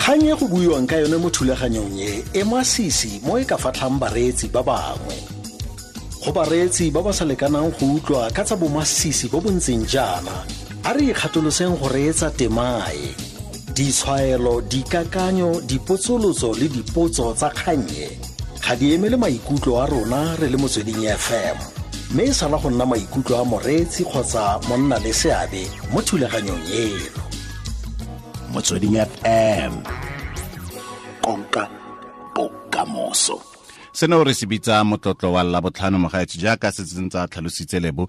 Kgang e go buiwang ka yone mo thulaganyong e e masisi mo e ka fatlhang bareetsi ba bangwe. Go bareetsi ba ba sa lekanang go utlwa ka tsa bomasisi bo bo ntseng jaana, a re ikgatoloseng go reetsa temae. Ditshwaelo, dikakanyo, dipotsolotso le dipotso tsa kgannye ga di emele maikutlo a rona re le Motsweding FM, mme e sala go nna maikutlo a moreetsi kgotsa monna le seabe mo thulaganyong eno. Motsweding FM, konka bokamoso. Seno re se bitsa motlotlo wa Labotlhano, mogaetsho, jaaka se sentse a tlhalositse Lebo.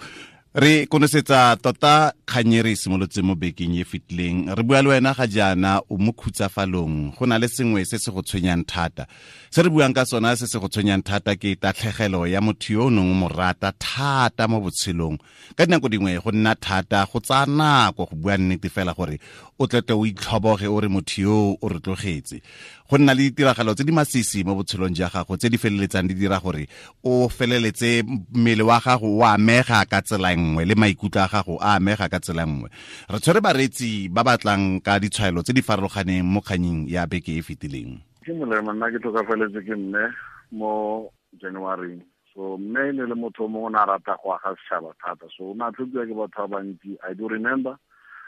Re konosetsa tota kgang e re e simolotse mo bekeng e fetileng. Re bua le wena ga jaana o mo khutsafalong, go na le sengwe se se go tshwenyang thata. Se re buang ka sona se se go tshwenyang thata ke tatlhegelo ya motho yo o neng o mo rata thata mo botshelong. Ka dinako dingwe go nna thata, go tsaya nako go bua nnete fela gore o tlete o itlhoboge o re motho yo o re tlogetse. Go nna le ditiragalo tse di masisi mo botshelong jwa gago tse di feleletsang di dira gore o feleletse mmele wa gago o amega ka tsela nngwe le maikutlo a gago a amega ka tsela nngwe. Re tshwere bareetsi ba batlang ka ditshwaelo tse di farologaneng mo kganyeng ya beke e fetileng. Ke molemo, nna ke tlhokafaletse ke mme mo January. So mme e ne le motho o mongwe o ne a rata go aga setšhaba thata, so o ne a tlhokiwa ke batho ba bantsi. I do remember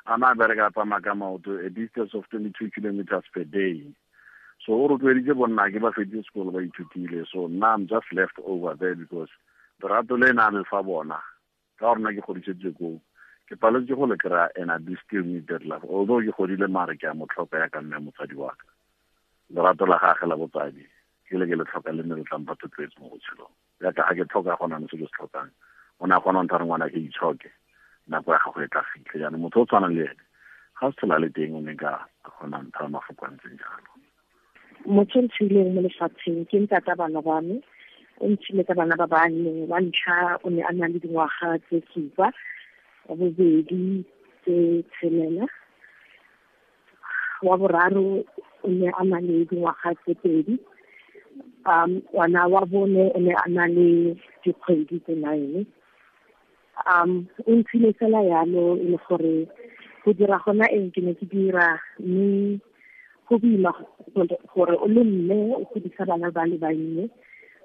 a ne a bereka a tsamaya ka maoto a distance of 22 kilometers per day. So o rotloeditse bonna ke ba feditse sekolo ba ithutile. So nna I'm just left over there because lerato le na le fa bona ka gore nna ke godisetswe koo, ke paletse go le kry-a, and I do still need that love. Although ke godile, mare ke a mo tlhoka ya ka mme motsadi wa ka. Lerato la gage la botsadi ke le ke le tlhoka, le ne le tlampa thotloetso mo botshelong jaaka ga ke tlhoka gona ne se ke se tlhokang. O ne a kgona go ntha re ngwana ke itshoke, nako ya gago e tla fitlha. Jaanong motho o tshwanang le ene ga se tlhola le teng, o ne ka kgona ntha mafoko a ntseng jalo. Motho o ntshileng mo lefatsheng ke ntata bana ba me. O ntshile ka bana ba bane. Wa ntlha o ne a na le dingwaga tse 7, wa bobedi tse 6, wa boraro o ne a na le dingwaga tse 2, ngwana wa bone o ne a na le dikgwedi tse 9. O ntshile fela yalo, e le gore go dira gona eng ke ne ke dira, mme go boima gore o le mme o godisa bana ba le bannye,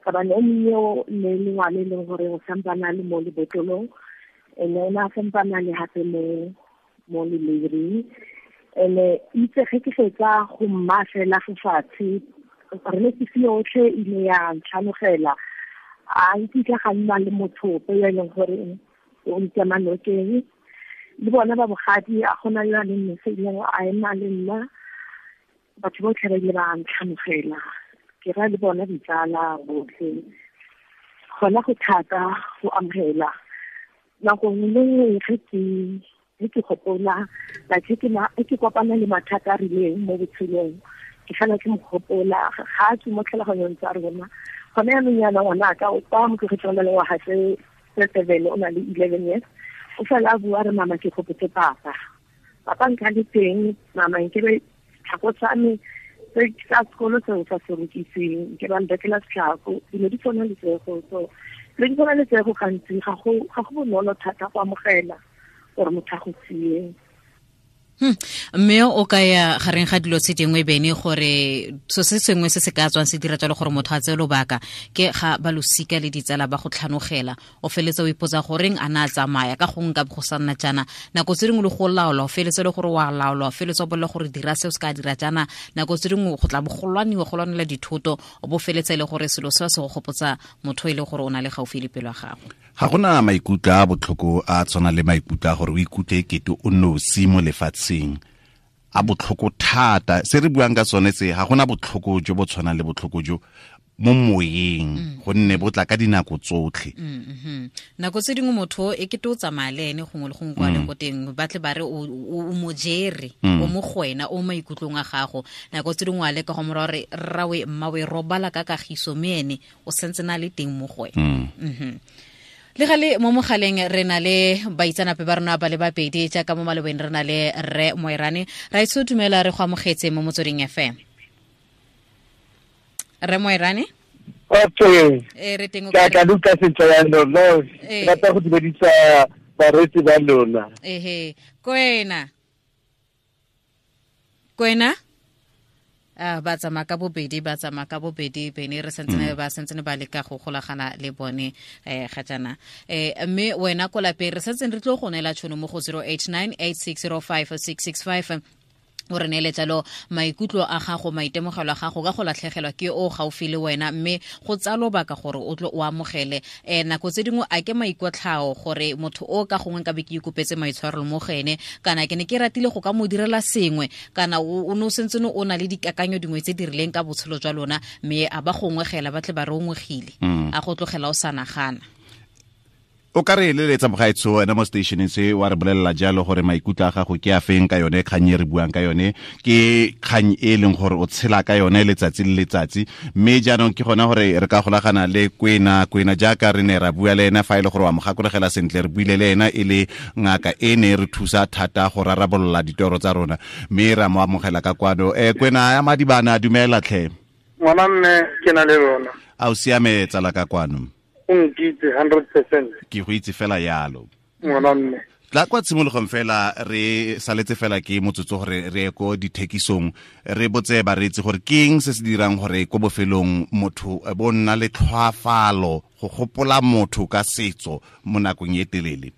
ka bane o monnye o ne le ngwana e leng gore o sampana le mo lebotlolong, ene o ne a sampana le hape mo leleiring. Ene itse ge ke fetsa go mma fela fo fatshe, re ne ke yotlhe e ile ya ntlhanogela. A nkitla ga nna le motho ope yo e leng gore o nkema nokeng. Le bona ba bogadi, a gona yo a leng mose ileng a ema le nna. Batho botlhe ba ile ba ntlhanogela, ke ra le bona ditsala botlhe. Gona go thata go amogela. Nako nngwe le nngwe ge ke gopola, like ge ke kopana le mathata a rileng mo botshelong, ke fela ke mo gopola. Ga a tswe mo tlhaloganyong tsa rona. Gone jaanong jaana ngwana ka o kwa mo tlogetseng o na le ngwaga tse 7, o na le 11 years. O fela a bua re, mama ke gopotse papa. Papa nka le teng, mama nke be tlhako tsa me tse tsa sekolo seo sa se rekiseng, ke ba nrekela setlhako. Dilo di tshwana le tsego, so dilo di tshwana le tsego gantsi ga go bonolo thata go amogela gore motho a go sie. Mme o ka ya gareng ga dilo tse dingwe bene gore so se sengwe se se ka tswang se dira jalo gore motho a tseye lobaka ke ga ba losika le ditsala ba go tlhanogela, o feletse o ipotsa goreng a na a tsamaya ka gongwe ka go sa nna jaana. Nako tse dingwe le go laola, o feletse le gore wa laola, o feletse o bolela gore dira se o se ka dira jaana. Nako tse dingwe go tla bo go lwaniwa, go lwanela dithoto, o bo feletse le gore selo seo se go gopotsa motho e le gore o na le gaufi le pelo ya gago. Ga gona maikutlo a botlhoko a tshwana le maikutlo a gore o ikutlwe ekete o nosi mo lefatsheng, a botlhoko thata. Se re buang ka sone se, ga gona botlhoko jo bo tshwanang le botlhoko jo mo moyeng, gonne bo tla ka dinako tsotlhe. Nako tse dingwe motho e kete o tsamaya le ene gongwe le gongwe kwa leng ko teng, ba tle ba re o mo jere, o mo go wena, o mo maikutlong a gago. Nako tse dingwe wa leka go mo raya gore rrawe, mmawe, robala ka kagiso, mme ene o santse na le teng mo go wena. Le gale mo mogaleng re na le baitsanape ba rona ba le babedi, jaaka mo malobeng re na le Rre Moerane. Ra itse o dumela, re go amogetse mo Motsweding FM. Rre Moerane? Okay. Re teng o Ke a kae? ka utlwa sentle jaanong, no, ke rata go dumedisa bareetsi ba lona. Ehe. Kwena. Kwena? Ba tsamaya ka bobedi, ba tsamaya ka bobedi bene re santsene ba santsene ba leka go golagana le bone ga jaana. Mme wena ko lapeng re santsene re tlo go neela tšhono mo go 089 8605 665 o re neele jalo maikutlo a gago, maitemogelo a gago ka go latlhegelwa ke o gaufi le wena, mme go tsaya lobaka gore o tlo o amogele. Nako tse dingwe a ke maikotlhao gore motho o ka gongwe nka be ke ikopetse maitshwarelo mo go ene, kana ke ne ke ratile go ka mo direla sengwe, kana o ne o sentse o na le dikakanyo dingwe tse di rileng ka botshelo jwa lona, mme a ba gongwegela ba tle ba re ongwegile, a go tlogela o sa nagana. O ka re eleletsa mogaetsho wena mo stationeng se wa re bolelela jalo gore maikutlo a gago ke a feng ka yone kgang e re buang ka yone, ke kgang e leng gore o tshela ka yone letsatsi le letsatsi. Mme jaanong ke gona gore re ka golagana le Kwena. Kwena jaaka re ne ra bua le ena, fa e le gore wa mo gakologela sentle, re buile le ena e le ngaka e ne re thusa thata go rarabolola ditoro tsa rona, mme ra mo amogela ka kwano. Kwena ya Madibana, dumela tlhe. Ngwana mme ke na le lona. A o siame tsala ka kwano? O nkitse 100%. Ke go itse fela yalo. Ngwana mme. Tla kwa tshimologong fela re saletse fela ke motsotso gore re ye ko dithekisong, re botse bareetsi gore ke eng se se dirang gore ko bofelong motho bo nna le tlhwaafalo go gopola motho ka setso mo nakong e telele.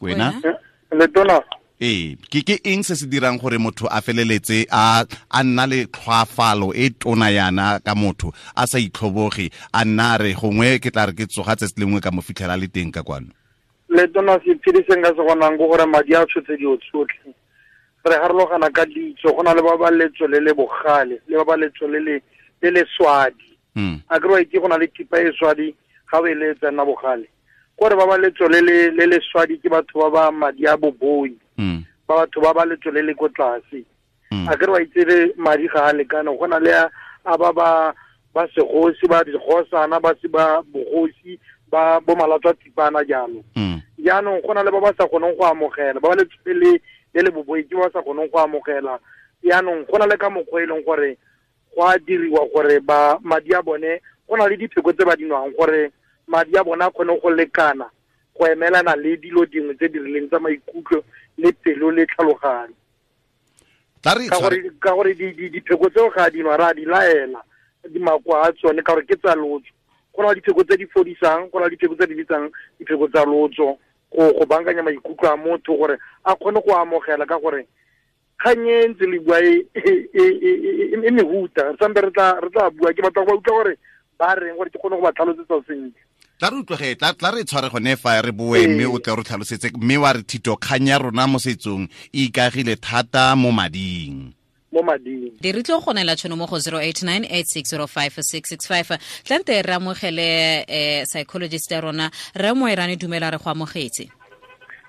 Wena? Letona. Ee, ke eng se se dirang gore motho a feleletse a nna le tlhwaafalo e tona yana ka motho a sa itlhoboge, a nna re gongwe ke tla re ke tsoga tsatsi lengwe ka mo fitlhela le teng ka kwano? Letona, sephiri se nka se bonang ke gore madi a tshotse dilo tsotlhe. Re harologana ka ditso, go na le ba ba letso le le bogale, le ba ba letso le le swadi. A ke re wa itse go na le thipa e swadi, ga o e letsa nna bogale. Kore ba ba letso le le swadi ke batho ba ba madi a boboi, ba batho ba ba letso le le ko tlase. A ke re wa itse le madi ga a lekane, go na le a ba ba segosi, ba dikgosana, ba se ba bogosi, ba bo malatswa tipana jalo. Jaanong go na le ba ba sa kgoneng go amogela, ba ba letso le le boboi ke ba sa kgoneng go amogela. Jaanong go na le ka mokgwa e leng gore go a diriwa gore ba madi a bone, go na le dipheko tse ba di nwang gore madi a bona a kgone go lekana go emelana le dilo dingwe tse di rileng tsa maikutlo le pelo le tlhaloganyo. Ka gore dipheko tseo ga di nwa, ra di laela dimakwa a tsone ka gore ke tsa lotso. Go na le dipheko tse di fodisang, go na le dipheko tse di bitsang dipheko tsa lotso go bankanya maikutlo a motho gore a kgone go amogela, ka gore kgang e ntse le bua e mehuta. Re sampe re tla bua, ke batla go ba utlwa gore ba reng gore ke kgone go ba tlhalosetsa sentle. Tla re utlwege, tla re tshware gone fa re boe, mme o tle re tlhalosetse, mme wa re thito kgang ya rona mo setsong e ikagile thata mo mading. Mo mading. Di re tlo go neela tšhono mo go 089 8605 665. Tlante re amogele psychologist ya rona, Rre Moerane, dumela, re go amogetse.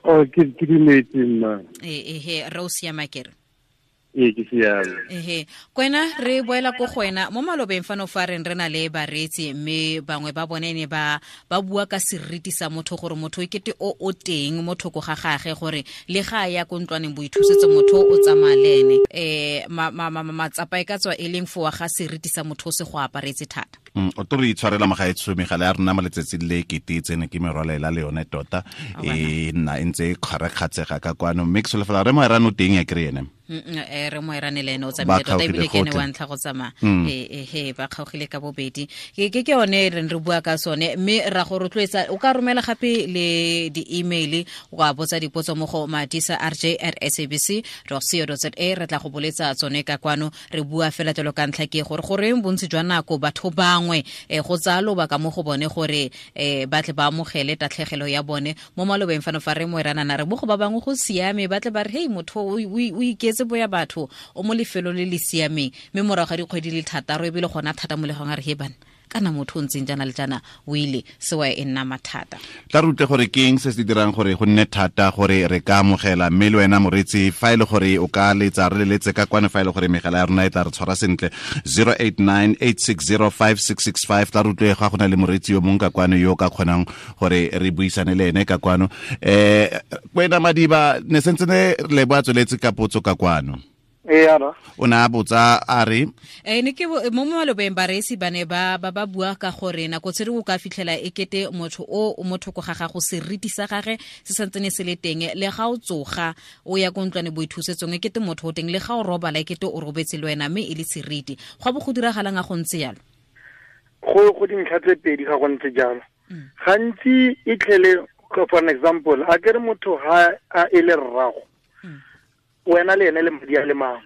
Oh, ke dumetse mma. Ehe, re o siama kere? Ee, ke siame. Ehe, Kwena, re boela ko go wena. Mo malobeng fano fa reng re na le bareetsi, mme bangwe ba bone ne ba bua ka seriti sa motho, gore motho e kete o teng mo thoko ga gagwe, gore le ga a ya ko ntlwaneng boithusetso motho o tsamaya le ene. Matsapa e ka tswa e leng fowa ga seriti sa motho o se go aparetse thata. O tlo re itshwarela mogaetsho, megala ya rona mo letsatsing le kete e tsene ke merwalela le yone tota, e nna e ntse e kgarakgatsega ka kwano. Mme ke solofela Rre Moerane o teng ya kry ene. Rre Moerane le ene o tsamaile tota, ebile ke ene wa ntlha go tsamaya. Ehe, ba kgaogile ka bobedi. Ke yone re re bua ka sone, mme ra go rotloetsa o ka romela gape le di-email, wa botsa dipotso mo go madisa rj@sabc.co.za, re tla go boletsa tsone ka kwano. Re bua fela jalo ka ntlha ke gore goreng bontsi jwa nako batho bangwe go tsaya lobaka mo go bone gore ba tle ba amogele tatlhegelo ya bone. Mo malobeng fano fa Rre Moerane a re mo go ba bangwe go siame, ba tle ba re hei, motho o iketse boya batho, o mo lefelong le le siameng, mme morago ga dikgwedi le thataro ebile gona thata mo legong a re he bana, kana motho o ntseng jaana le jaana o ile, sewa e nna mathata. Tla re utlwe gore ke eng se se dirang gore go nne thata gore re ka amogela. Mme le wena moreetsi, fa e le gore o ka letsa, re leletse ka kwano, fa e le gore megala ya rona e tla re tshwara sentle, 089 8605 665. Tla re utlwe ga go na le moreetsi yo mongwe ka kwano yo o ka kgonang gore re buisane le ene ka kwano. Kwena Madiba, ne sentse ne le bo a tsweletse ka potso ka kwano. Ee, o ne a botsa a re ne ke mo malobeng bareetsi ba ne ba ba bua ka gore nako tse dingwe o ka fitlhela e kete motho o mo thoko ga gago seriti sa gage se santsene se le teng, le ga o tsoga o ya ko ntlwane boithusetsong e kete motho o teng, le ga o robala e kete o robetse le wena, mme e le seriti. Go bo go diragalang a go ntse jalo? Go dintlha tse pedi ga go ntse jalo. Gantsi e tlhele, for an example, a kere motho ha a e le rrago, wena le ene le madi a le mangwe,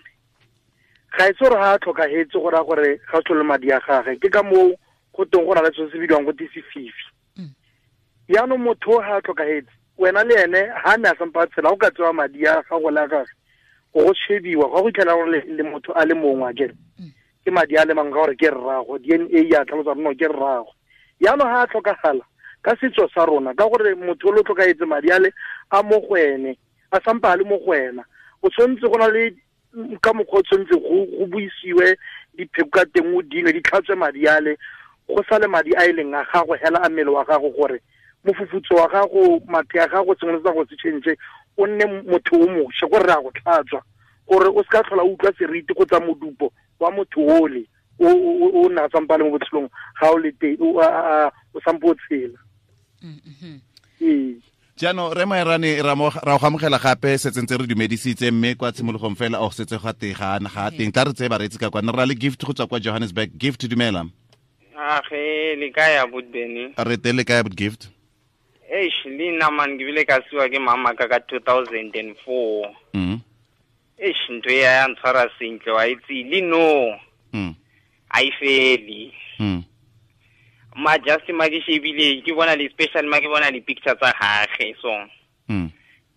ga e se gore ga a tlhokagetse go raya gore ga se le madi a gage. Ke ka moo go teng go na le selo se bidiwang go te sefifi. Jaanong motho ga a tlhokagetse, wena le ene ga ne a sampa a tshela, go ka tsewa madi a gago le a gage go shebiwa, ga go itlhela gore le motho a le mongwe a kere ke madi a le mangwe ka gore ke rrago, DNA ya tlhalosa gore no ke rrago. Jaanong ga a tlhokagala ka setso sa rona, ka gore motho o le tlhokagetse madi a le a mo go ene, a sampa a le mo go wena, o tshwanetse go na le ka mokgwa o tshwanetse go buisiwe dipheko ka teng, o dinwe di tlhatswe madi ale, go sale madi a e leng a gago hela a mmele wa gago, gore mofufutso wa gago, mathe a gago, sengwe le sa go se change, o nne motho o mošwa, gore re a go tlhatswa gore o se ka tlhola o utlwa seriti kgotsa modupo wa motho ole o nna a sampa le mo botshelong ga o le teng, o sampo o tshela. Ee. Jaanong re Moerane, ra go amogela gape, setse ntse re dumedisitse mme kwa tshimologong fela o setse ga teng ga teng. Tla re tseye bareetsi ka kwana, re na le Gift go tswa kwa Johannesburg. Gift, dumela. Age le kae abuti Benny? Re teng, le kae abuti Gift? Eish, le nna man ke bile ka siwa ke mama ka 2004. Eish, ntho e ya ntshwara sentle, wa itse le no. A e fele. Ma just ma ke shebile ke bona le special, ma ke bona le picture tsa gage so.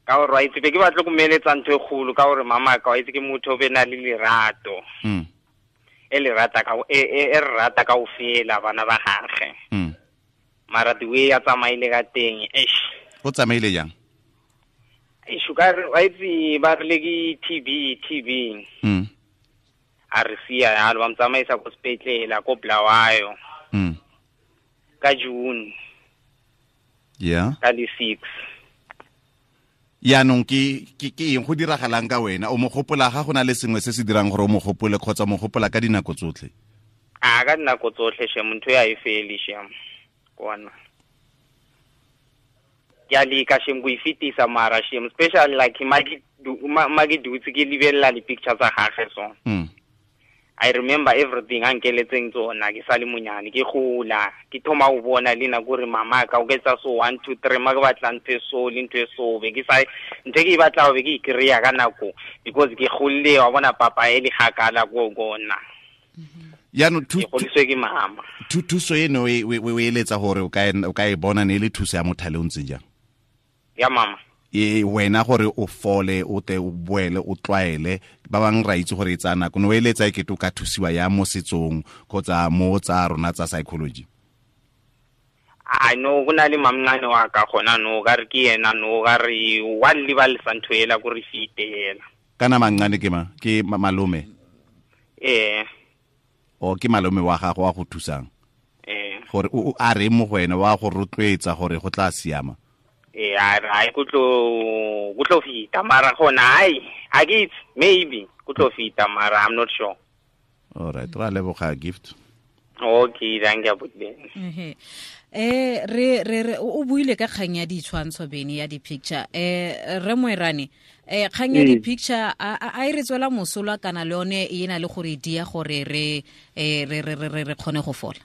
Ka gore wa itse be ke batla go meletsa ntho e kgolo, ka gore mama ka wa itse ke motho o be na le lerato. E le rata ka e rata ka ofela bana ba gage. Mara the way a tsamaile ka teng, eish. O tsamaile jang? Eish, ka re wa itse ba re le ke TB. A re sia yalo, ba mtsamaisa ko sepetlele ko Bulawayo. Ka June. Yeah. Ka di 6. Yaanong ke eng go diragalang ka wena? O mo gopola ga go na le sengwe se se dirang gore o mo gopole, kgotsa mo gopola ka dinako tsotlhe? A ka dinako tsotlhe shem, ntho ya e fele shem. Kona. Ke a leka shem go e fetisa mara shem, especially like ma ke dutse ke lebelela di-picture tsa gage so. I remember everything a nkeletseng tsona ke sa le monyane, ke gola, ke thoma go bona le nako gore mama ka o ketsa so 1 2 3, ma ke batla ntho e so le ntho e so, be ke sa ntho e ke e batla be ke e kry-a ka nako because ke golle wa bona papa e le gakala ko gona. Yaanong ke godiswe ke mama. Thuso eno o eletsa gore o ka e bona ne e le thuso ya mothale o ntseng jang? Ya mama. E wena gore o fole, o te o boele, o tlwaele, ba bang ra itse gore e tsaya nako, no eletsa e kete o ka thusiwa ya mo setsong kgotsa mo tsa rona tsa psychology? I know go na le mamncane wa ka gona no, ka re ke yena no, ka re wa lebalesa ntho ela ko re fite ela. Kana mamncane ke ma? Ke malome? Ee. O ke malome wa gago wa go thusang? Ee. Gore o a re mo go wena wa go rotloetsa gore go tla siama? Eh, a go tlo fita mara gona ai, a ke itse, maybe go tlo fita mara I'm not sure. All right, ra leboga Gift. Okay, thank you abuti. Re o buile ka kgang ya ditshwantsho Bene, ya di-picture. Re Moerane, kgang ya di-picture a e re tswela mosola kana le yone e na le gore dia gore re re kgone go fola?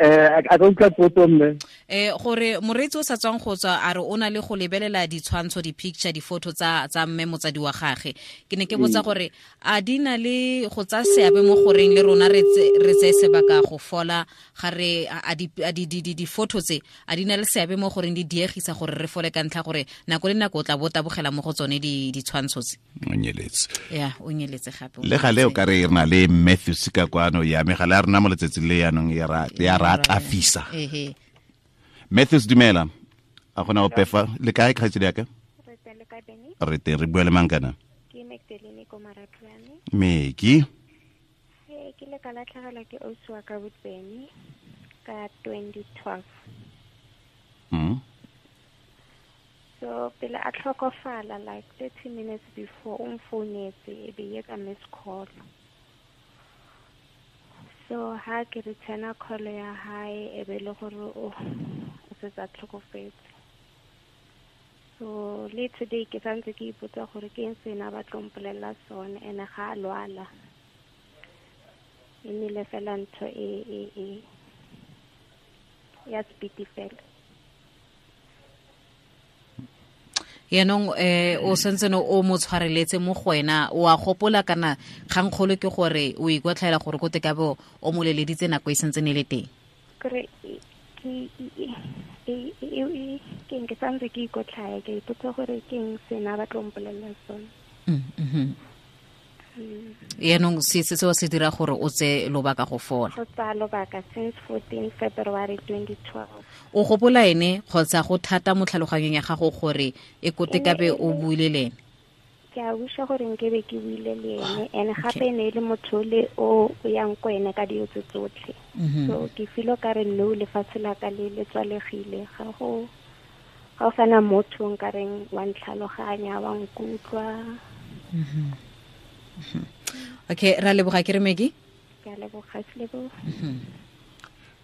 A ka utlwa potso mme? Gore moreetsi o sa tswang go tswa a re o na le go lebelela ditshwantsho, di-picture, di-photo tsa mme motsadi wa gage. Ke ne ke botsa gore a di na le go tsaya seabe mo goreng le rona re tseye sebaka go fola, ga re a di-photo tse a di na le seabe mo goreng di diegisa gore re fole ka ntlha gore nako le nako o tla bo tabogela mo go tsone ditshwantsho tse. O nyeletse. Ya, o nyeletse gape. Le gale o ka re re na le Matthews ka kwano ya megala ya rona mo letsatsing le yaanong ya ra tlafisa. Matthews, dumela. A gona ope fa le kae kgaitsedi ya ka? Re teng, le kae Benny? Re teng, re bua le mang kana? Ke Magdalene ko Marapyane. Meki. Ke le ka latlhegelwa ke ausi wa ka Benny ka 2012. So pele a tlhokofala like 30 minutes before o mfounetse e be ye ka miss call. So ha ke returna call ya hae e be le gore o setse a tlhokofetse. So le today ke santse ke ipotsa gore ke eng se na ba tlo mpolelela sone ene ga a lwala. E nnile fela ntho e ya speedy fela. Yaanong o sentse no o mo tshwareletse mo go wena, o a gopola kana kgangkgolo ke gore o ikotlhaela gore ko te ka bo o mo leleditse nako e sentse ne le teng? Kore ke santse ke ikotlhaya, ke ipotsa gore ke eng se na ba tlo mpolelela sone. Yaanong se seo se dira gore o tse lobaka go fola? Go tsaya lobaka since 14 February 2012. O gopola ene kgotsa go thata mo tlhaloganyong ya gago gore e kote ka be o buile le ene? Ke a wisha gore nkebe ke buile le ene, and gape e ne e le motho le o yang ko ene ka dilo tse tsotlhe. So ke feel ka re no lefatshe la ka le le tswalegile, ga go sana motho nka reng wa ntlhaloganya, wa nkutlwa. Okay, ra leboga ke re Maggie. Ke a leboga Selebo.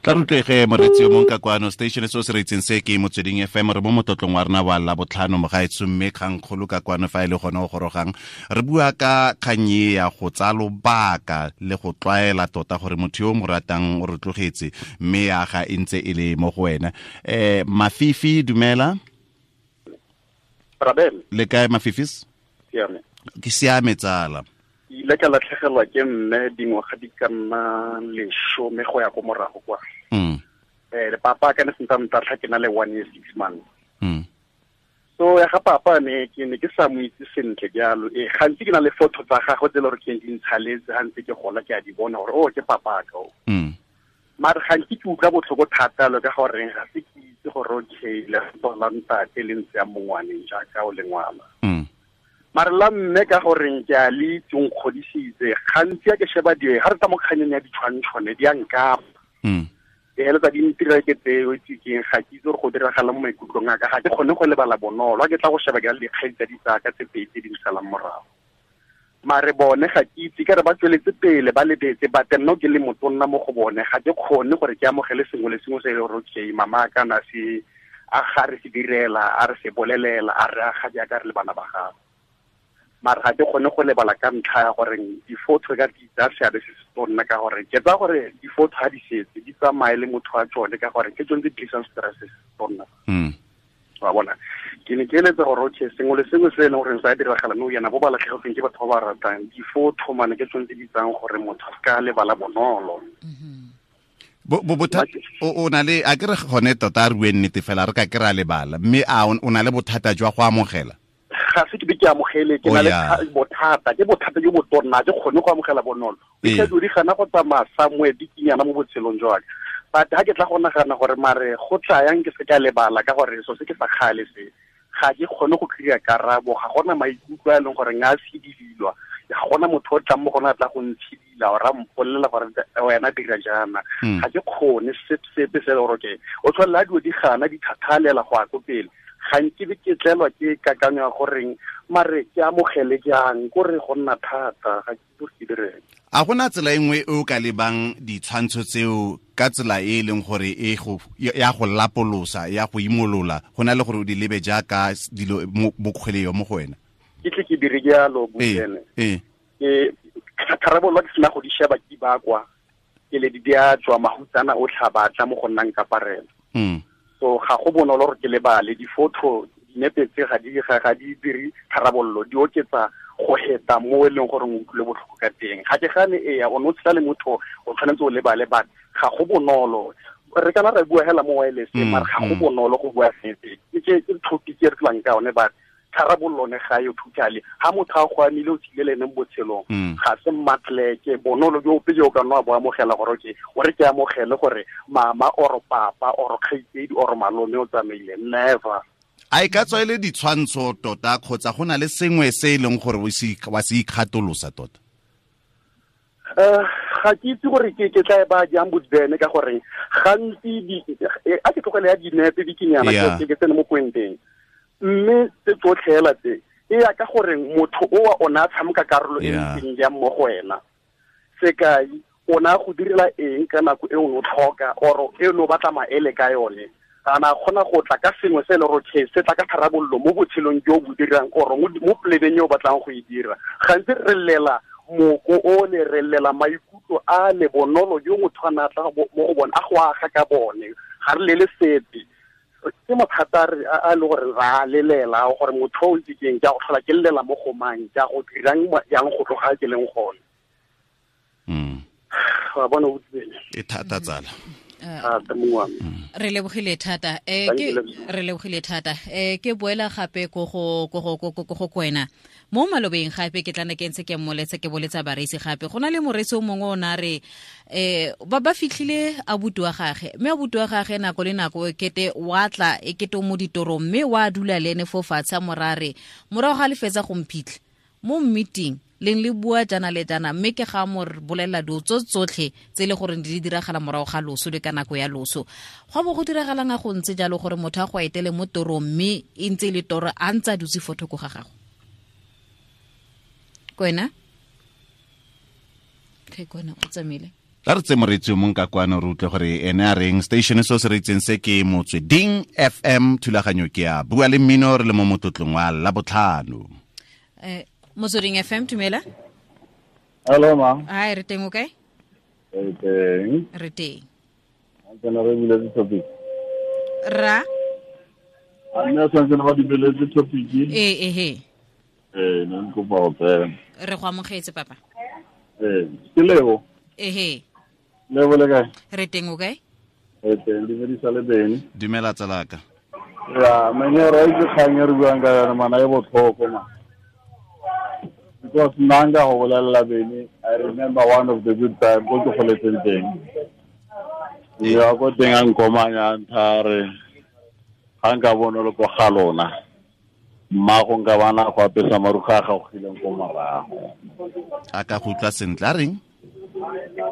Tla rutlege moretsi yo mongwe ka kwano station se o se reitseng se ke Motsweding FM, re mo motlotlong wa rena wa Labotlhano mogaetsho, mme kgangkgolo ka kwano fa e le gone o gorogang re bua ka kgang e ya go tsaya lobaka le go tlwaela tota gore motho yo o mo ratang o re tlogetse, mme ya ga e ntse e le mo go wena. Mafifi, dumela. Rabel. Le kae Mafifis? Siame. Ke siame tsala. Ile ka latlhegelwa ke mme dingwaga di ka nna 10 go ya ko morago kwa. Le papa ka ne sentse ntatlha ke na le 1 year 6 months. So ya ga papa ne ke ne ke sa mo itse sentle jalo. Gantsi ke na le photo tsa gagwe tse le gore ke di ntshaletse ha ntse ke gola ke a di bona gore oh ke papa ka o. Mare gantsi ke utlwa botlhoko thata lo ka gore ga se ke itse gore okay le la ntate le ntse ya mongwaneng jaaka o le ngwana. Mare la mme ka goreng ke a le itse o nkgodisitse, gantsi a ke sheba di ga re tsa mo kganyeng ya ditshwantshone di a nkama. E heletsa di ntira ke tseo itse keng, ga ke itse gore go diragala mo maikutlong a ka, ga ke kgone go lebala bonolo. Ha ke tla go sheba ke dikgang tsa ditsaka tse pedi tse di nsalang morago. Mare bone ga ke itse ka re ba tsweletse pele ba lebetse, but nna ke le motonna mo go bone ga ke kgone gore ke amogele sengwe le sengwe se e le gore okay mama ka na se a ga re se direla, a re se bolelela, a re aga jaaka re le bana ba gagwe. Mare ga ke kgone go lebala ka ntlha ya gore di-photo ka di tsaya seabe se se tonna, ka gore ke tsaya gore di-photo ga di setse di tsamaye le motho wa tsone, ka gore ke tsone tse di tlisang stress se se tonna. Wa bona, ke ne ke eletsa gore okay sengwe le sengwe se e leng gore sa diragala nou yana bo ba latlhegetsweng ke batho ba ba ratang, di-photo mane ke tsone tse di tsang gore motho a ka lebala bonolo. Bothata o na le a ke re gone tota a re bue nnete fela re ka ke ra lebala, mme a o na le bothata jwa go amogela? Ga se ke be ke amogele, ke na le bothata, ke bothata jo bo tonna, ke kgone go amogela bonolo. Ke di gana go tsamaya somewhere bikinyana mo botshelong jwa ka. But ha ke tla go nagana gore mare go tla yang ke se ka lebala ka gore so se ke sa kgale se, ga ke kgone go kry-a karabo, ga gona maikutlo a e leng gore nga sedilwa, ga gona motho o tlang mo gona a tla go ntshidila ora mpolelela gore wena dira jaana. Ga ke kgone sepe se le gore okay o tshwanela dilo di gana di thathalela go ya ko pele. Ga nke be ke tlelwa ke kakanyo ya goreng mare ke amogele jang, kore go nna thata, ga ke itse ke direng. A gona tsela e nngwe e o ka lebang ditshwantsho tseo ka tsela e e leng gore e go ya go lapolosa, ya go imolola, go na le gore o di lebe jaaka dilo mokgweleo mo go wena? Ke tle ke dire jalo botene. Ke tharabollo ke sena go di sheba ke bakwa, ke le di a tswa mahutsana o tlhabatla mo go nnang kaparela. So ga go bonolo gore ke lebale di-photo, dinepe tse ga di dire tharabollo, di oketsa go heta mo e leng gore o utlwile botlhoko ka teng. Ga ke gane ea o ne o tshela le motho o tshwanetse o lebale, but ga go bonolo. Re kana ra bua hela mo wireless, mare ga go bonolo go bua sepe. Ke topic e re tlang ka yone, but tharabollo ne ga yo totally. Ha motho a go amile o tsile le ene mo botshelong, ga se mmatleke bonolo jo ope jo o ka nna bo amogela gore okay o re ke amogele gore mama or papa or kgaitsedi or malome o tsamaile, never. A e ka tswa e le ditshwantsho tota kgotsa go na le sengwe se e leng gore wa se ikgatolosa tota? Ga ke itse gore ke tla e ba jang bodibene, ka gore gantsi a ke tlogele ya dinepe bikinyana ke tsene mo pointeng. Mme tse tsotlhe hela tse e ya ka gore motho o wa ona a tshameka karolo e ntseng jang mo go wena. Sekai, o na go direla eng ka nako e o tlhoka or e o batla maele ka yone. Ana kgona go tla ka sengwe se le gore se tla ka tharabollo mo botshelong jo bo dirang or mo plebeng yo o batlang go e dira. Gantsi re llela moko o le re llela maikutlo a le bonolo jo motho a na tla mo go bone a go aga ka bone. Ga re lele sepe. Ke mathata a le gore ra lelela gore motho o itse keng ke a go tlhola ke llela mo go mang, ke a go dirang yang go tloga ke leng gone. Wa bona o tsene. E thata tsala. Re lebogile thata ke re lebogile thata ke boela gape go go kwena mo malobeng gape ke tlana ke ntse ke mmoletse ke boletsa bareisi gape go na le moreisi o mongwe o na re ba fitlhile abuti wa gagwe mme abuti wa gagwe nako le nako e kete wa tla e kete o mo ditorong mme wa dula le ene fo fatshe a morare morago ga le fetsa go mphitlha mo meeting leng le bua jana le jana mme ke ga mo bolela dilo tsotlhe tse le gore di diragala morago ga loso le ka nako ya loso. Go bo go diragalang a go ntse jalo gore motho a go etele mo torong mme e ntse le toro a ntse a dutse fo thoko ga gago. Kwena? Ke kwena o tsamaile. La re tse moreetsi o mong ka kwano re utlwe gore ene a reng. Station se se reetseng se ke Motsweding FM, thulaganyo ke ya Bua le Mmino, re le mo motlotlong wa Labotlhano. Motsweding FM, dumela. Hello ma. Hi, re teng o kae? Re teng. Re teng. Ke na re buletse topic. Ra? A nna santse ba dibeletse topic. Ee. Nna ke kopa go tsena. Re go amogetse papa. Ke Lebo. Ehe. Lebo le kae? Re teng o kae? Re teng, dumedisa le beng. Dumela tsalaka. Ya, mene re itse kgang e re buang ka yone mana e botlhoko ma. Because nanga go bolelela bene, I remember one of the good time ko ke goletseng teng. Ya ko teng a nkomanya nthare ga nka bona le ko ga lona. Mmago nka bana go apesa maruga a gagogileng ko morago. A ka go utlwa sentle a reng?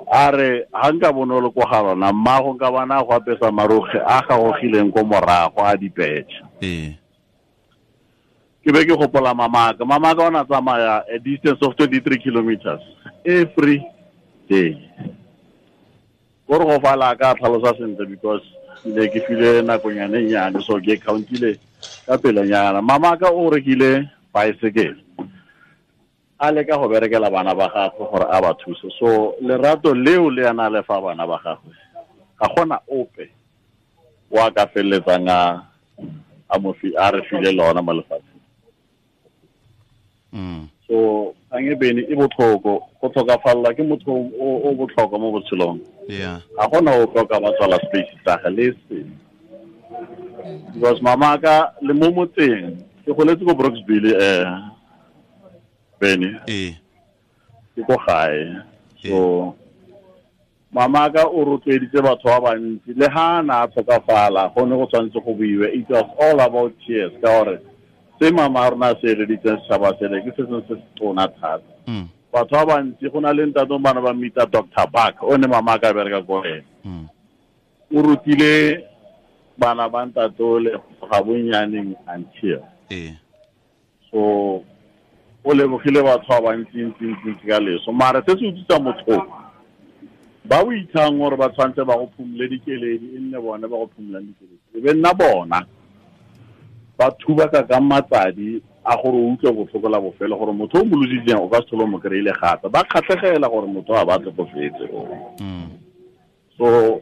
A re ga nka bona le ko ga lona mmago nka bana go apesa maruge a gagogileng ko morago a dipetšhe. Ee. Ke be ke gopola mamaka. Mamaka o na tsamaya a distance of 23 kilometers every day. Gore go fala ka tlhalosa sentle because ne ke file nakonyane nyane so ke countile ka pelenyana. Mamaka o rekile bicycle. A leka go berekela bana ba gagwe gore a ba thuse. So lerato leo le ana le fa bana ba gagwe. Ga gona ope wa ka feleletsang a mo fi a re file lona mo lefatsheng. So ang e bene e botlhoko go tlhokafalla ke motho o botlhokwa mo botshelong. Yeah. A gona o tlhoka ba tswala space tsa ga le se. Because mama ka le mo motseng ke goletse ko Brooksville bene. Ke ko gae. So mama ka o rotloeditse batho ba bantsi le ha na tlhokafala go ne go tshwanetse go buiwe. It was all about tears ka gore se mama rona se eleditseng setšhaba sele ke se sengwe se se tona thata. Batho ba bantsi go na le ntate bana ba mmitsa Dr. Buck o ne mama ka bereka ko ene. O rutile bana ba ntatole ga bonnyaneng until. So o lebogile batho ba bantsi ntsi ka leso. Mara se se utlwisa motho ba o ithang gore ba tshwanetse ba go phumule dikeledi e nne bone ba go phumulang dikeledi. E be nna bona ba thuba ka matsadi a gore o utlwe botlhoko la bofelo gore motho o mo lositseng o ka se tlhole mo kry-ile gape. Ba kgatlhegela gore motho a ba tlhokofetse. So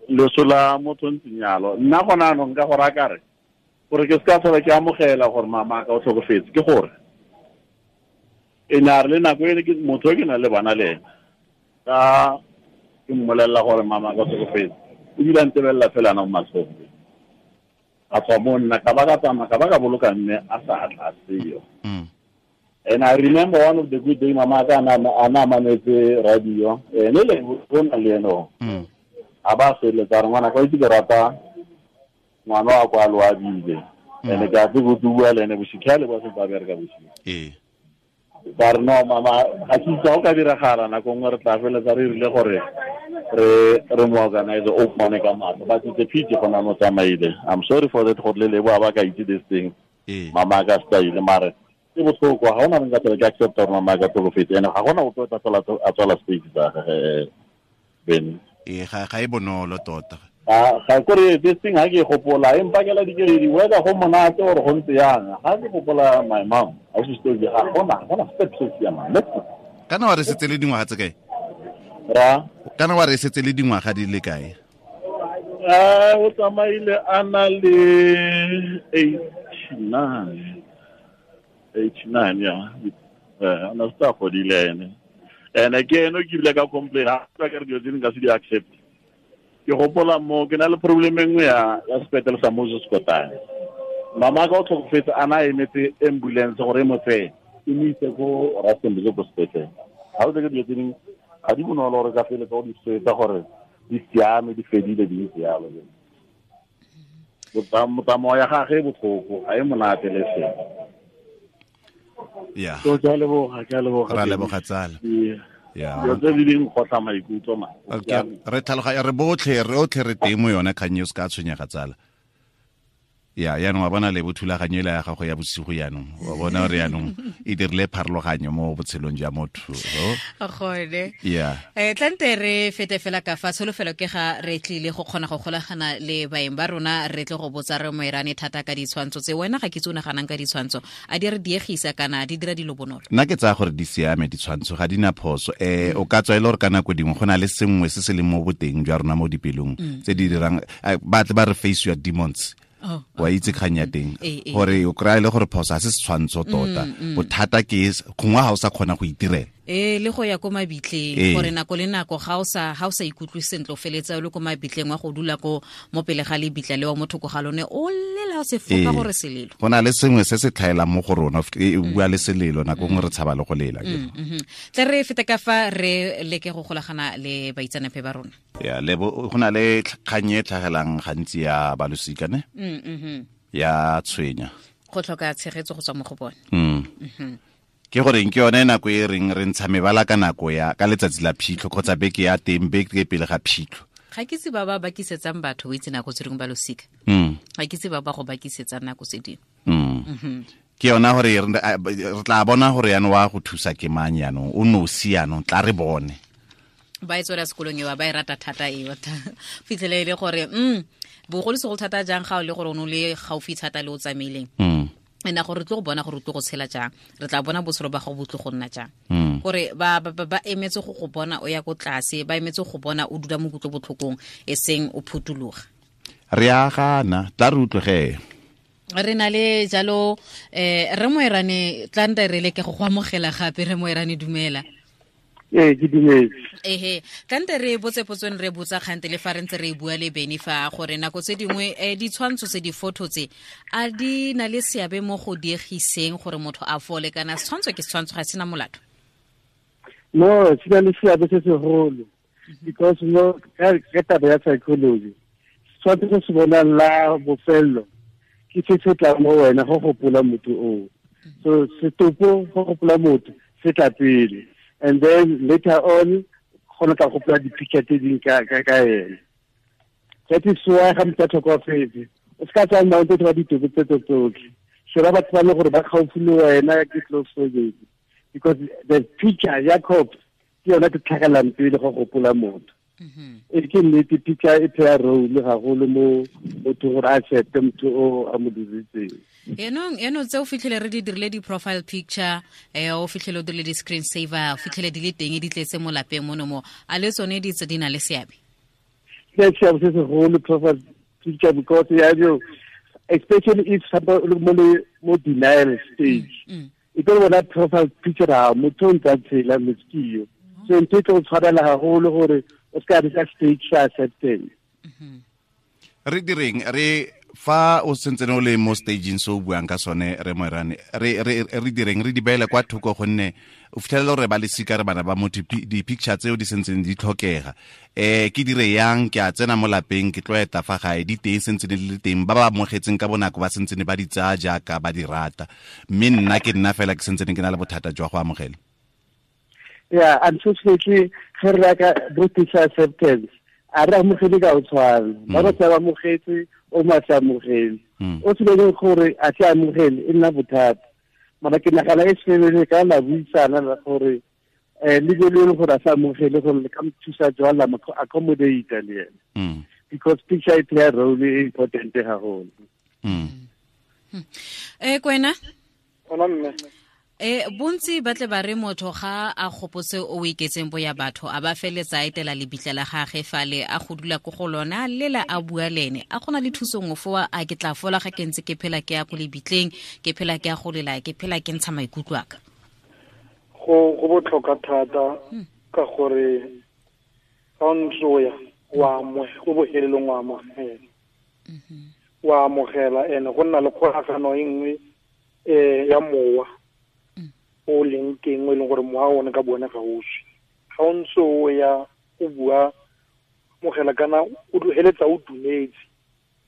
leso la motho ntseng yalo nna gona anong ka gore a kare gore ke se ka tlhola ke amogela gore mama ka o tlhokofetse ke gore e ne a re le nako e ke motho e ke nang le bana le ena ka ke mmolelela gore mama ka o tlhokofetse ebile a ntebelela fela ana mo matlhong. A tswa mo nna ka ba ka tsamaya ka ba ka boloka mme a sa tla seo. And I remember one of the good day mama ka ana mametse radio ene le bona le eno. A ba feletsa re ngwana ka itse ke rata ngwana wa kwa loabile. Ene ke a tse go bua le ene bosigo le ba se ba bereka bosigo. Ba re no mama ga ke itse go ka diragala nako nngwe re tla feletsa re rile gore re mo organize o mone ka matlo. But it's a pity gona mo tsamaile. I'm sorry for that gore le lebo ba ka itse this thing. Mama ka style mare ke botlhoko ga ona nka tsela ke accept gore mama ka tlhokofetse ene ga gona ope o tla a tswala space tsa gage Ben. Ga e bonolo tota. Ga kore this thing ha ke gopola e mpakela dikeledi whether go monate or go ntse yang ga ke gopola my mom a se story ga gona step se siamang. Kana wa re setse le dingwaga tse kae? Ra kana wa re setse le dingwaga di le kae? O tsamaile a na le 89 ya ana sta godile ene ene ke eno ke bile ka complain ha ka re dilo tse nka se di accept. Ke gopola mo ke na le problem e nngwe ya sepetlele sa Moses Kotane. Mama ka o tlhokofetse a na emetse ambulance gore e mo tseye e mo ise ko Rustenburg ko sepetlele. Ga o tseke dilo tse dingwe ga di bonolo gore ka feletsa o di swetsa gore di siame di fedile di ntse yalo. Motsamao ya gage e botlhoko ga e monate le seng. Yeah. So ke a leboga. Ra leboga tsala. Yeah. Dilo tse di ding gotla maikutlo ma. Okay. Re tlhaloganya re botlhe re otlhe re teng mo yone kgang e o se ka tshwenyega tsala. Ya yaanong wa bona le bothulaganyo ela ya gago ya bosigo yaanong wa bona gore yaanong e dirile pharologanyo mo botshelong jwa motho. Gone. Yeah. Tlante re fete fela ka fa tsholofelo ke ga re tlile go kgona go golagana le baeng ba rona re tle go botsa re moerane thata ka ditshwantsho tse wena ga ke tse o naganang ka ditshwantsho a di re diegisa kana di dira dilo bonolo. Nna ke tsaya gore di siame ditshwantsho ga di na phoso. O ka tswa e le gore ka nako dingwe go na le sengwe se se leng mo boteng jwa rona mo dipelong tse di dirang ba tle ba re face your demons. Wa itse kgang ya teng gore o kry-a le gore phoso ga se setshwantsho tota bothata ke gongwe ga o sa kgona go itirela le go ya ko mabitleng gore nako le nako ga o sa ikutlwe sentle o feletsa o le ko mabitleng wa go dula ko mo pele ga lebitla le wa motho ko ga lone o lela o se foka gore selelo go na le sengwe se se tlhaelang mo go rona e bua le selelo nako nngwe re tshaba le go lela tle re fete ka fa re leke go golagana le baitseanape ba rona. Ya le go na le kgang e tlhagelang gantsi ya balosika ne ya tshwenya go tlhoka tshegetso go tswa mo go bone. Ke gore ke yone nako e reng re ntsha mebala ka nako ya ka letsatsi la phitlho kgotsa beke ya teng beke pele ga phitlho. Ga ke itse ba ba bakisetsang batho o itse nako tse dingwe ba losika. Ga ke itse ba ba go bakisetsang nako tse dingwe. Ke yona gore re tla bona gore yaanong wa go thusa ke mang yaanong o nosi yaanong tla re bone. Ba e tswela sekolong ewa ba e rata thata eo fitlhele e le gore bogolosegolo thata jang ga o le gore o ne o le gaufi thata le o tsamaileng ena gore re tlo go bona gore o tlo go tshela jang re tla bona botshelo ba gago bo tlo go nna jang gore ba emetse go go bona o ya ko tlase ba emetse go bona o dula mo kutlo botlhokong e seng o phuthuloga. Re a gana tla re utlwege re na le jalo re moerane tla nte re leke go go amogela gape re moerane dumela. Ke dumetse. Ehe, tlante re botse potsong re botsa kgante le fa re ntse re bua le Beni fa gore nako tse dingwe ditshwantsho tse di-photo tse a di na le seabe mo go diegiseng gore motho a fole kana setshwantsho ke setshwantsho ga sena molato? No, se na le seabe se segolo because no ka taba ya psychology setshwantsho se se bonang la bofello ke se se tlang mo wena go gopola motho oo. So setopo go gopola motho se tla pele. And then later on, gona tla gopola di-picture tse ding ka ene. That is why ga motho a tlhokofetse o se ka tsaya mount wa ditopo tse tsotlhe. Sheba batho ba le gore ba gaufi le wena ke close family because the picture ya corpse ke yona ke tlhagelang pele go gopola motho. E ke nnete picture e play role gagolo mo motho gore a accepte motho o a mo diritseng. Eno tse o fitlhele re di dirile di-profile picture o fitlhele o dirile di-screen saver o fitlhele di le teng di tletse mo lapeng mono mo a le tsone di tse di na le seabe? Ke seabe se segolo profile picture because ya jo especially if somebody mo denial stage e tlo bona profile picture ha motho o ntse a tshela meskio so ntho e tlo tshwarela haholo gore o se ka re ka stage sa acceptance. Re direng re fa o sentse o le mo stageng se o buang ka sone re moerane re direng re di beele kwa thoko gonne o fitlhelela gore ba lesika re bana ba motho di-picture tseo di sentseng di tlhokega ke dire yang ke a tsena mo lapeng ke tlo eta fa gae di teng sentse di le teng ba ba amogetseng ka bonako ba sentse ba di tsaya jaaka ba di rata mme nna ke nna fela ke sentse ke na le bothata jwa go amogela. Yeah, unfortunately ge re ka British acceptance a re amogele ka o tshwana ba ba tsa amogetse o ma sa amogele. O se le gore a se amogele e nna bothata. Mara ke nagana e se ka la buisana la gore le le gore a sa amogele gore le ka mo thusa jwang la mo accommodate le ena. Because picture e play a role e important haholo. Kwena? Ona mme. Bontsi ba tle ba re motho ga a gopotse o iketseng bo ya batho a ba feletsa etela lebitla la gagwe fale a go dula ko go lona lela a bua lene a gona le thuso nngwe fo a ke tla fola ga ke ntse ke phela ke ya ko lebitleng ke phela ke ya go lela ke phela ke ntsha maikutlo a ka. Go botlhokwa thata ka gore ga o ntse o ya wa go bohelelong wa amogela. Wa amogela ene go nna le kgolagano e nngwe ya mowa o leng teng o e leng gore mowa one ka bone ga o swe. Ga o ntse o ya o bua mogela kana o heletsa o dumetse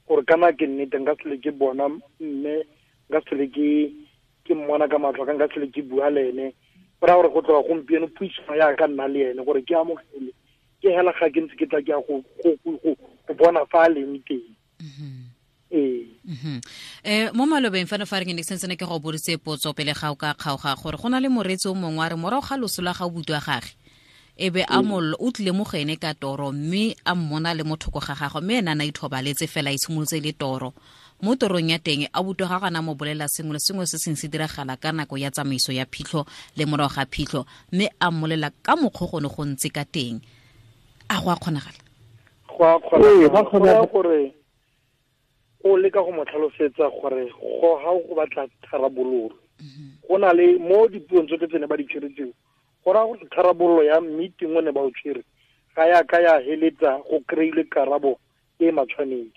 gore kana ke nnete nka sele ke bona mme nka sele ke mmona ka matlho ka nka sele ke bua le ene. Go raya gore go tloga gompieno puisano ya ka nna le ene gore ke amogele ke hela ga ke ntse ke tla ke ya go bona fa a leng teng. Mo malobeng fano fa re ke ne sentse ke go boditse potso pele ga o ka kgaoga gore go na le moreetsi o mongwe a re morago ga loso la ga o butwa gage e be a mollo o tlile mo go ene ka toro mme a mmona le mo thoko ga gagwe mme ena a na ithobaletse fela e simolotse le toro mo torong ya teng a butwa ga gana mo bolela sengwe le sengwe se seng se diragala ka nako ya tsamaiso ya phitlho le morago ga phitlho mme a mmolela ka mokgwa go ne go ntse ka teng. A go a kgonagala? Go a kgonagala gore o leka go mo tlhalosetsa gore go ga go batla tharabololo. Go na le mo dipuong tsotlhe tse ne ba di tshwere tseo go raya gore tharabololo ya meeting o ne ba o tshwere ga ya ka ya heletsa go kry-ile karabo e matshwanedi.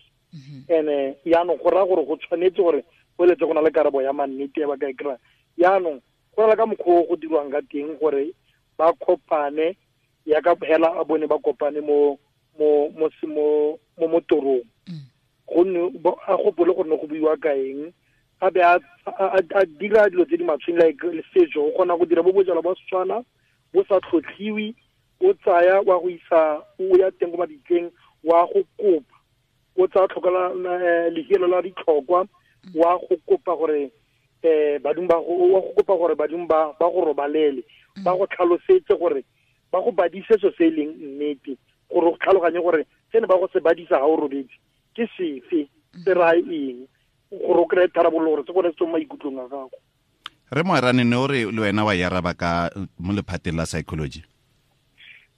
Ene yaanong go raya gore go tshwanetse gore go eletse go na le karabo ya mannete ya ba ka e kry-a. Yaanong go na le ka mokgwa o go dirwang ka teng gore ba kopane ya ka hela a bone ba kopane mo mo mo mo mo torong. Gonne a gopole gore ne go buiwa ka eng a be a dira dilo tse di matshweng like setso o kgona go dira bo bojalwa ba Setswana bo sa tlhotlhiwe o tsaya wa go isa o ya teng ko mabitleng wa go kopa o tsaya tlhokala lehelo la ditlhokwa wa go kopa gore badimo ba go wa go kopa gore badimo ba go robalele ba go tlhalosetse gore ba go badise so se e leng nnete gore o tlhaloganye gore se ne ba go se badisa ga o robetse ke sefe se raya eng gore o kry-e tharabololo gore se gone se tswe mo maikutlong a gago. Re Moerane ne o re le wena wa yaraba ka mo lephateng la psychology.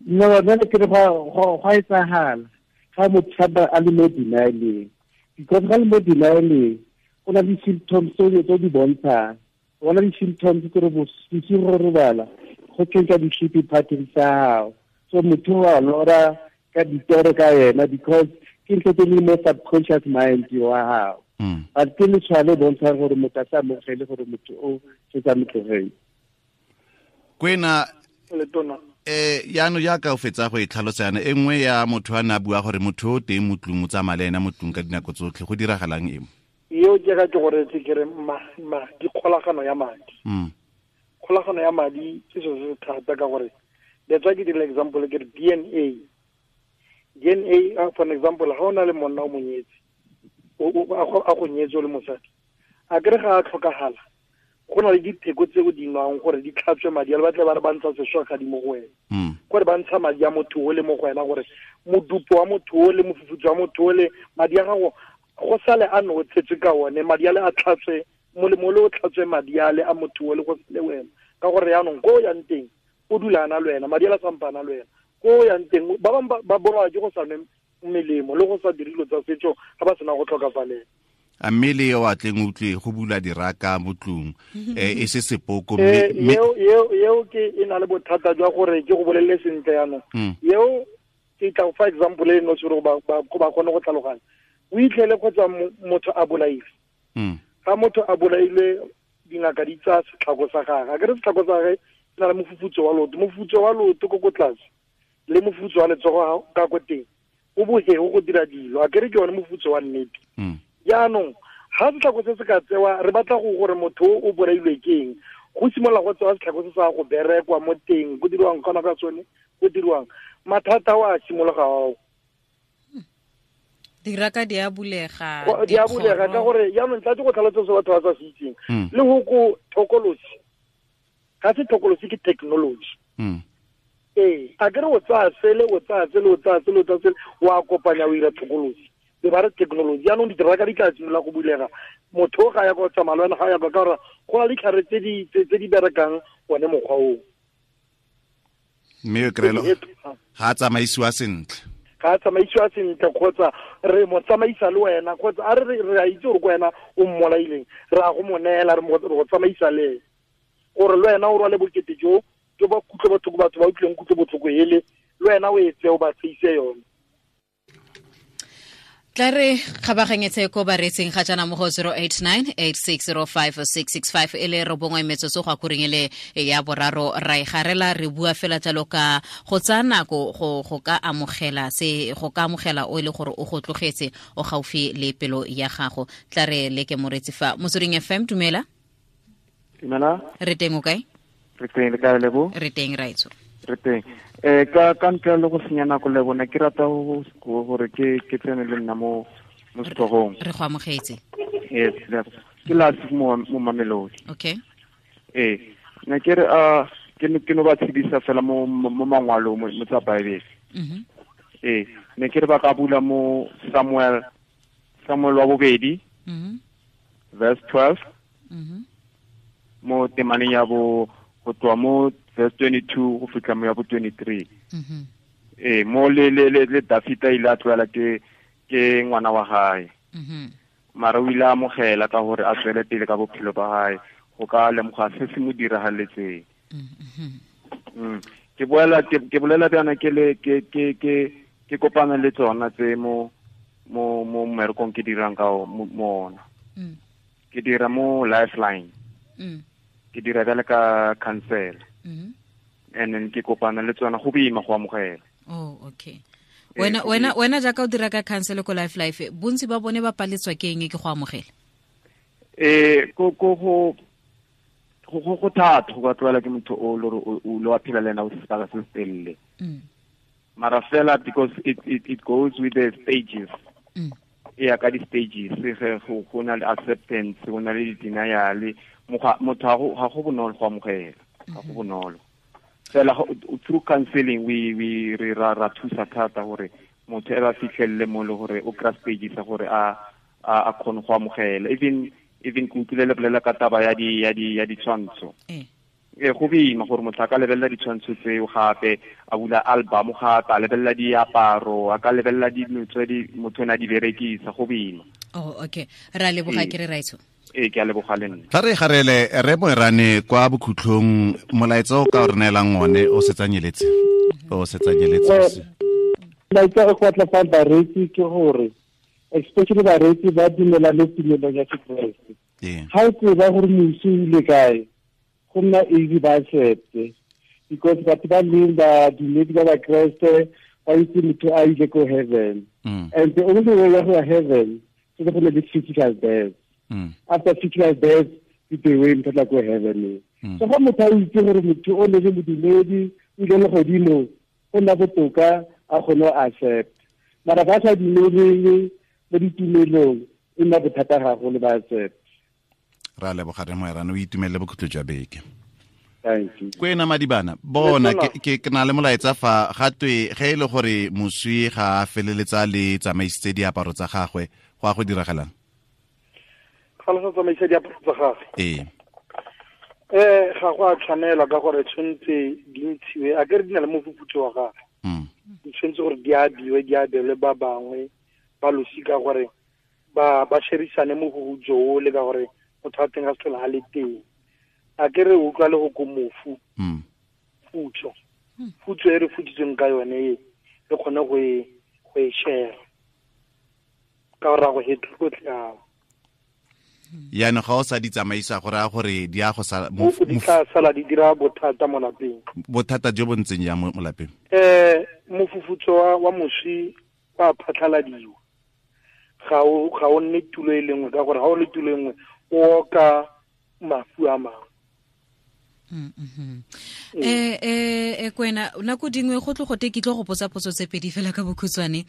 No, nna ke re go a etsagala ga motho a le mo denialeng because ga le mo denialeng go na le symptoms tse di bontshang. Go na le symptoms tse re bosigo go robala go change di-sleeping patterns tsa gago. So motho wa lora ka ditoro ka yena because ke ntho tse di mo subconscious mind wa gago. But ke letshwao le bontshang gore motho a sa amogele gore motho o setse a mo tlogetse. Kwena letona yaanong jaaka o fetsa go e tlhalosa yana e nngwe ya motho a ne a bua gore motho o teng mo tlung o tsamaya le ena mo tlung ka dinako tsotlhe go diragalang eng? Eo ke ga ke gore ke re ma di kgolagano ya madi. Kgolagano ya madi ke selo se se thata ka gore that's why ke dira example ke re DNA. DNA for an example ga o na le monna o monyetse a go nyetse o le mosadi a kere ga a tlhokagala go na le dipheko tse o di nwang gore di tlhatswe madi a le batle ba re ba ntsha sešwagadi mo go wena. Gore ba ntsha madi a motho o le mo go wena gore modupo wa motho o le mofufutso wa motho o le madi a gago go sale a no tshetswe ka one madi a le a tlhatswe molemo le o tlhatswe madi a le a motho o le go le wena ka gore yaanong ko o yang teng o dula a na le wena madi a le sampana le wena ko o yang teng ba bangwe ba bolawa ke go sa nwe melemo le go sa dire dilo tsa setso ga ba sena go tlhokafalela. A mme le yo a tleng utlwe go bula diraka mo tlung e se sepoko eo ke e na le bothata jwa gore ke go bolelele sentle yaanong eo ke tla for example e no gore ba kgone go tlhaloganya o itlhele kgotsa motho a bolaile. Ga motho a bolaile dingaka di tsaya setlhako sa gagwe a kere setlhako sa gagwe se na le mofufutso wa loto mofufutso wa loto ko ko tlase le mofufutso wa letsogo ka ko teng o bohego go dira dilo a kere ke yone mofufutso wa nnete. Jaanong ga setlhako se se ka tsewa re batla go gore motho o bolailwe ke eng go simolola go tsewa setlhako se sa go berekwa mo teng go diriwang kgona ka tsone go diriwang mathata wa simologa ao. Diraka di a bulega. Di a bulega ka gore jaanong tla go tlhalosa se batho ba sa se itseng. Le go ko thokolosi. Ga se thokolosi ke technology. Ee, a kere o tsaya sele, o tsaya sele, o tsaya sele, o tsaya sele, wa kopanya o ira thokolosi. Be ba re technology, jaanong ditiraka di tla simolola go bulega. Motho ga ya go tsamaya le wena ga ya ka gore go na le ditlhare tse di berekang one mokgwa oo. Mme o kry-e ga a tsamaisiwa sentle. Ga a tsamaisiwa sentle kgotsa re mo tsamaisa le wena kgotsa a re re a itse gore ko wena o mmolaileng, re a go mo neela re go tsamaisa le ene. Gore le wena o rwale bokete jo jo ba kutlwe botlhoko batho ba utlwileng kutlwe botlhoko ele, le wena o e tseye o ba tseise yone. Tla re kgabaganyetse ko bareetsing ga jaana mo go 089 8605 665 e le 9 metsotso go akoreng e le ya boraro ra e garela re bua fela jalo ka go tsaya nako go ka amogela se go ka amogela o e le gore o go tlogetse o gaufi le pelo ya gago. Tla re leke moreetsi fa Motsweding FM. Dumela. Dumela. Re teng o kae? Re teng le kae Lebo? Re teng raitso. Re teng. Ka ntle le go senya nako le bona ke rata gore ke tsene le nna mo setlhogong. Re go amogetse. Yes, ke last mo Mamelodi. Okay. Ne ke re ke no ba tshedisa fela mo mangwalong mo tsa Bible. Ne ke re ba ka bula mo Samuel wa bobedi. Verse 12. Mo temaneng ya bo go tloa mo verse 22 go fitlha mo ya bo 23. Mo le Dafita ile a tloela ke ngwana wa hae. Mara o ile a amogela ka gore a tswele pele ka bophelo ba hae go ka lemoga se se mo diragaletseng. Ke bolela bjana ke le ke kopana le tsona tse mo mmerekong ke dirang ka mo ona. Ke dira mo Lifeline. Ke dira bjale ka council. And then ke kopana le tsona go boima go amogela. Oh, okay. Wena jaaka o dira ka council ko Life, bontsi ba bone ba paletswa ke eng ke go amogela? Go thata go ka tlwaela ke motho o le o lo a phela le ena o sebaka se telele. Mara fela because it goes with the stages. Ya ka di stages go na le acceptance, go na le denial, motho ga go bonolo go amogela, ga go bonolo. Fela through counseling we re ra thusa thata gore motho e ba fitlhelele mo le gore o kry stage sa gore a kgone go amogela. Even ke utlwile le bolela ka taba ya ditshwantsho. Go boima gore motho a ka lebelela ditshwantsho tseo gape, a bula album gape, a lebelela diaparo, a ka lebelela dilo tse di motho o ne a di berekisa, go boima. Oh, okay. Ra leboga ke re raitso. Ke a leboga le nna. Tla re garele re Moerane kwa bokhutlhong molaetsa o ka o re neelang one o setsanyeletse. O setsanyeletse. Molaetsa o go tla fa bareetsi ke gore especially bareetsi ba dumela le tumelong ya Sekreste. Ga o tseba gore mosi o ile kae, go nna easy ba accepte because batho ba leng ba dumedi ba Bakreste ba itse motho a ile ko heaven. And the only way ya go ya heaven ke go le physical death. After physical death, ke the way motho tla ko heaven. So ga motho a itse gore motho o ne le modumedi o ile legodimo, go nna botoka a kgone go accept. Mara ba sa dumeleng mo ditumelong e nna bothata gagolo ba accept. Ra leboga re Moerane, o itumelele bokhutlo jwa beke. Thank you. Kwena Madibana, bona ke na le molaetsa fa ga twe ge e le gore moswi ga a feleletsa le tsamaisitse diaparo tsa gagwe, go a go diragalang? Ga le sa tsamaisa diaparo tsa gagwe. Ga go a tshwanela ka gore tshwanetse di ntshiwe, a ke re di na le mofufutso wa gagwe. Di tshwanetse gore di abiwe, di abelwe ba bangwe ba losika gore ba sherisane mofufutso o le ka gore motho wa teng a se tlhola a le teng. A ke re utlwa le go ko mofu. Futso. Futso e re futsitsweng ka yone e, re kgone go e share. Ka gore a go hetlhotlhe ao. Yaanong ga o sa di tsamaisa go raya gore di a go sala di tla sala di dira bothata mo lapeng. Bothata jo bo ntseng jang mo lapeng? Mofufutso wa moswi wa phatlhaladiwa. Ga o nne tulo e le nngwe ka gore ga o le tulo e nngwe o oka mafu a mangwe. Kwena nako dingwe go tle gote ke tlo go potsa potso tse pedi fela ka bokhutshwane.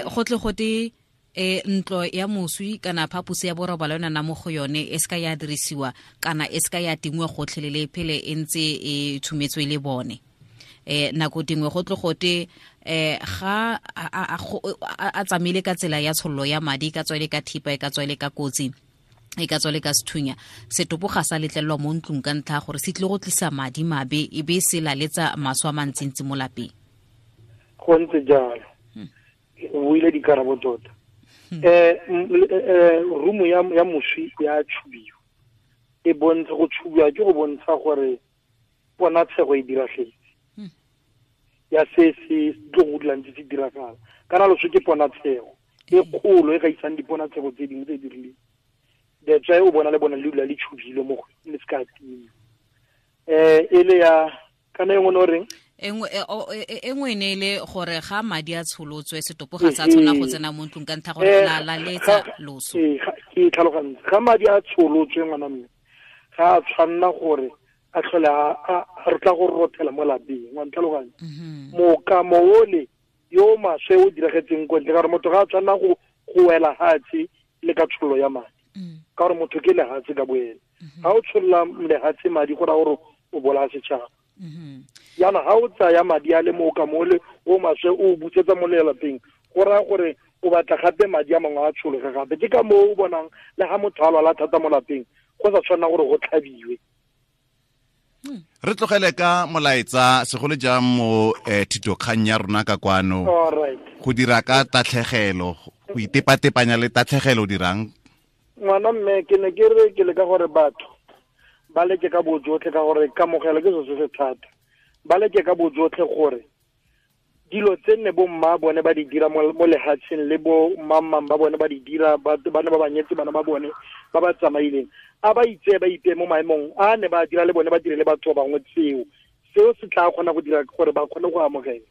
Go tle gote Ntlo ya moswi kana phaposi ya borobalo yona na mo go yone e seka ya dirisiwa kana e seka ya tingwe gotlhelele phele e ntse e thumetswe le bone. Nako dingwe go tlo gote ga a tsamaile ka tsela ya tshollo ya madi, ka tswele ka thipa, e ka tswele ka kotsi, e ka tswele ka sethunya, setopo ga sa letlelelwa mo ntlong ka ntlha gore se tlile go tlisa madi mabe e be se laletsa maswe a mantsintsi mo lapeng. Go ntse jalo. O buile dikarabo tota. Rumo ya moswi ya tshubiwa, e bontsha go tshubiwa ke go bontsha gore ponatshego e diragetse ya se se tlo go dulang se diragala. Kana loso ke ponatshego e kgolo e gaisang diponatshego tse dingwe tse di rileng. That's why o bona le bona le dula le tshubile mo go le se ka timiwa. E le ya kana e nngwe o reng? E nngwe ne le gore ga madi a tsholotswe setopo ga sa tshwana go tsena mo ntlong ka ntlha gore la laletsa loso. Ke tlhalogantse. Ga madi a tsholotswe ngwana mme ga a tshwanna gore a tlhole a re tla go rothela mo lapeng, wa ntlhaloganya. Mokamo ole yo maswe o diragetseng ko ntle, ka gore motho ga a tshwanna go wela hatshe le ka tshollo ya madi, ka gore motho ke lehatshe ka boene. Ga o tsholola lehatshe madi go raya gore o bolaya setšhaba. Jaanong ga o tsaya madi a le mokamo ole o maswe o busetsa mo lelapeng, go raya gore o batla gape madi a mangwe a tshologe gape. Ke ka moo o bonang le ga motho a lwala thata mo lapeng go sa tshwanna gore go tlhabiwe. Re tlogele ka molaetsa segolo jang mo thitokgang ya rona ka kwano. Go dira ka tatlhegelo, go itepatepanya le tatlhegelo dirang. Ngwana mme ke ne ke re ke leka gore batho ba leke ka bojotlhe, ka gore kamogelo ke selo se se thata. Ba leke ka bojotlhe gore dilo tse nne bo mma bone ba di dira mo lehatsheng le bo mmamang ba bone ba di dira, ba ne ba banyetse bana ba bone ba ba tsamaileng, a ba itse ba ipe mo maemong a ne ba dira le bone ba dire le batho ba bangwe. Seo se tla kgona go dira gore ba kgone go amogela.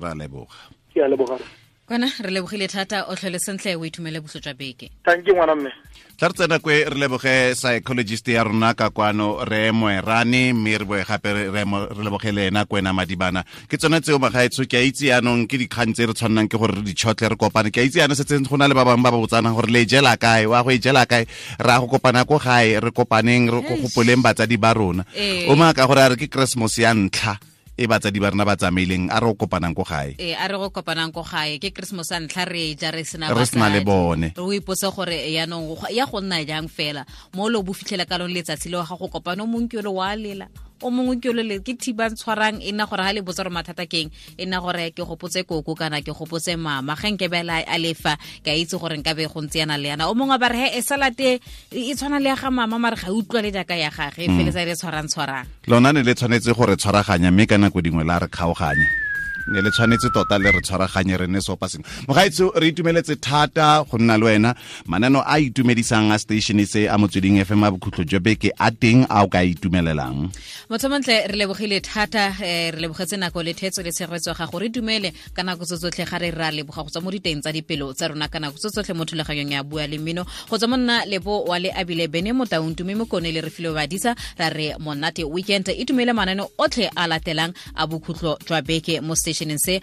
Ra leboga. Ke a leboga. Kwana re lebogile thata, o tlhole sentle, o itumele boso jwa beke. Thank you ngwana mme. Tla re tsena kwe re leboge psychologist ya rona ka kwano re Moerane, mme re boe gape re leboge le ena Kwena Madibana. Ke tsone tseo magaetsho, ke a itse yaanong ke dikgang tse re tshwannang ke gore re di tšhotle re kopane. Ke a itse yaanong setse go na le ba bangwe ba ba botsanang gore le e jela kae, wa go e jela kae, re a go kopana ko gae, re kopaneng, re gopoleng batsadi ba rona. O maaka gore a re ke Christmas ya ntlha e batsadi ba rena ba tsamaileng, a re go kopanang ko gae. A re go kopanang ko gae, ke Christmas a ntlha re ja re sena re sena le bone. Re o ipotse gore yaanong ya go nna jang fela mo lo bo fitlhela ka lone letsatsi leo ga go kopana, o mongwe ke ole wa lela, o mongwe ke ole ke thibang tshwarang, e nna gore ha le botsa gore mathata keng, e nna gore ke gopotse koko kana ke gopotse mama, ge nke bela a lefa ke a itse gore nka be go ntse yana le yana. O mongwe ba re he e salate e tshwana le ya ga mama, mare ga utlwa le jaaka ya gage, e feletsa e le tshwarang tshwarang. Lona ne le tshwanetse gore tshwaraganya, mme ka nako dingwe la re kgaoganya. Ne le tshwanetse tota le re tshwaraganye re ne sopa sengwe. Mogaetsho, re itumeletse thata go nna le wena. Manano a itumedisang a station se a Motsweding FM a bokhutlo jwa beke a teng a o ka itumelelang. Motho montle, re lebogile thata, re lebogetse nako le thetso le tshegetso ga gore dumele ka nako tse tsotlhe, ga re ra leboga go tswa mo diteng tsa dipelo tsa rona ka nako tse tsotlhe mo thulaganyong ya Bua le Mmino. Go tswa mo nna Lebo wa le Abile Bene Motaung Tumi Mokone le Refilwe Badisa, ra re monate weekend. Itumele manano otlhe a latelang a bokhutlo jwa beke mo stationeng se.